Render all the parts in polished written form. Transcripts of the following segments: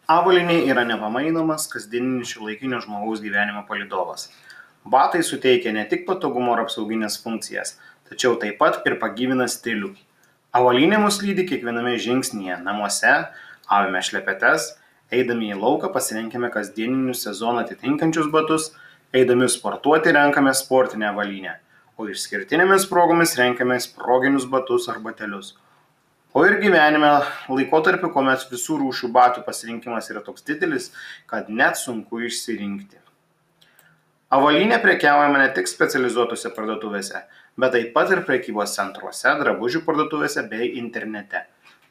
Avalynė yra nepamainomas kasdieninis šiuolaikinio žmogaus gyvenimo palydovas. Batai suteikia ne tik patogumo ar apsauginės funkcijas, tačiau taip pat ir pagyvina stilių. Avalynė mus lydi kiekviename žingsnyje, namuose, avime šlepetes, eidami į lauką pasirenkame kasdieninius sezoną atitinkančius batus, eidami sportuoti renkame sportinę avalynę, o išskirtinėmis progomis renkamės proginius batus ar batelius. O ir gyvenime laikotarpiu, kuomet visų rūšių batų pasirinkimas yra toks didelis, kad net sunku išsirinkti. Avalynė prekiaujama ne tik specializuotose parduotuvėse, bet taip pat ir prekybos centruose, drabužių parduotuvėse bei internete.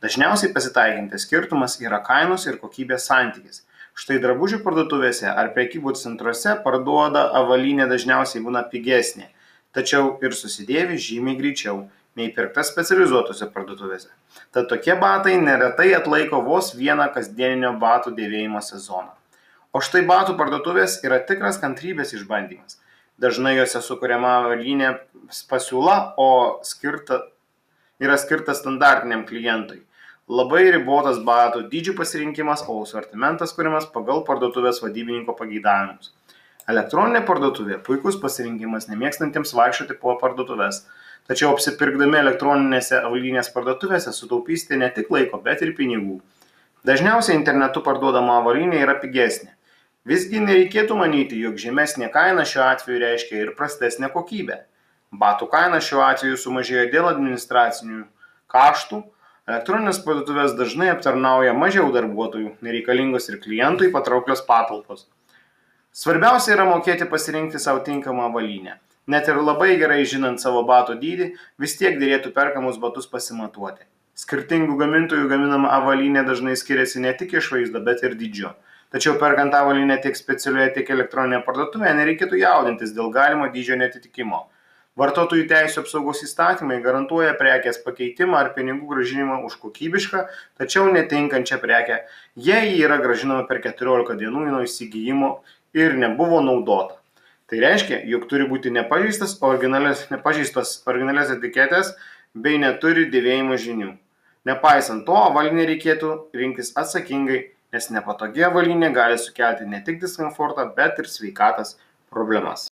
Dažniausiai pasitaikantis skirtumas yra kainos ir kokybės santykis. Štai drabužių parduotuvėse ar prekybos centruose parduoda avalynė dažniausiai būna pigesnė, tačiau ir susidėvi žymiai greičiau nei pirkta specializuotose parduotuvėse. Tad tokie batai neretai atlaiko vos vieną kasdieninio batų dėvėjimo sezoną. O štai batų parduotuvės yra tikras kantrybės išbandymas. Dažnai jose sukuriama avalynė pasiūla, o yra skirta standartiniam klientui. Labai ribotas batų dydžių pasirinkimas, o asortimentas kuriamas pagal parduotuvės vadybininko pageidavimus. Elektroninė parduotuvė puikus pasirinkimas nemėgstantiems vaikščioti po parduotuvės. Tačiau apsipirkdami elektroninėse avalynės parduotuvėse sutaupysite ne tik laiko, bet ir pinigų. Dažniausiai internetu parduodama avalynė yra pigesnė. Visgi nereikėtų manyti, jog žemesnė kaina šiuo atveju reiškia ir prastesnę kokybę. Batų kaina šiuo atveju sumažėjo dėl administracinių kaštų. Elektroninės parduotuvės dažnai aptarnauja mažiau darbuotojų, nereikalingos ir klientui patrauklios patalpos. Svarbiausia yra mokėti pasirinkti savo tinkamą avalynę. Net ir labai gerai žinant savo batų dydį, vis tiek dėrėtų perkamus batus pasimatuoti. Skirtingų gamintojų gaminama avalynė dažnai skiriasi ne tik išvaizda, bet ir dydžiu. Tačiau perkant avalynę tiek specialioje, tiek elektroninėje parduotuvėje nereikėtų jaudintis dėl galimo dydžio neatitikimo. Vartotojų teisių apsaugos įstatymai garantuoja prekės pakeitimą ar pinigų grąžinimą už kokybišką, tačiau netinkančią prekę, jei ji yra grąžinama per 14 dienų nuo įsigijimo ir nebuvo naudota. Tai reiškia, jog turi būti nepažeistos originalias etiketės bei neturi dėvėjimo žymių. Nepaisant to, avalynę reikėtų rinktis atsakingai, nes nepatogi avalynė gali sukelti ne tik diskomfortą, bet ir sveikatos problemas.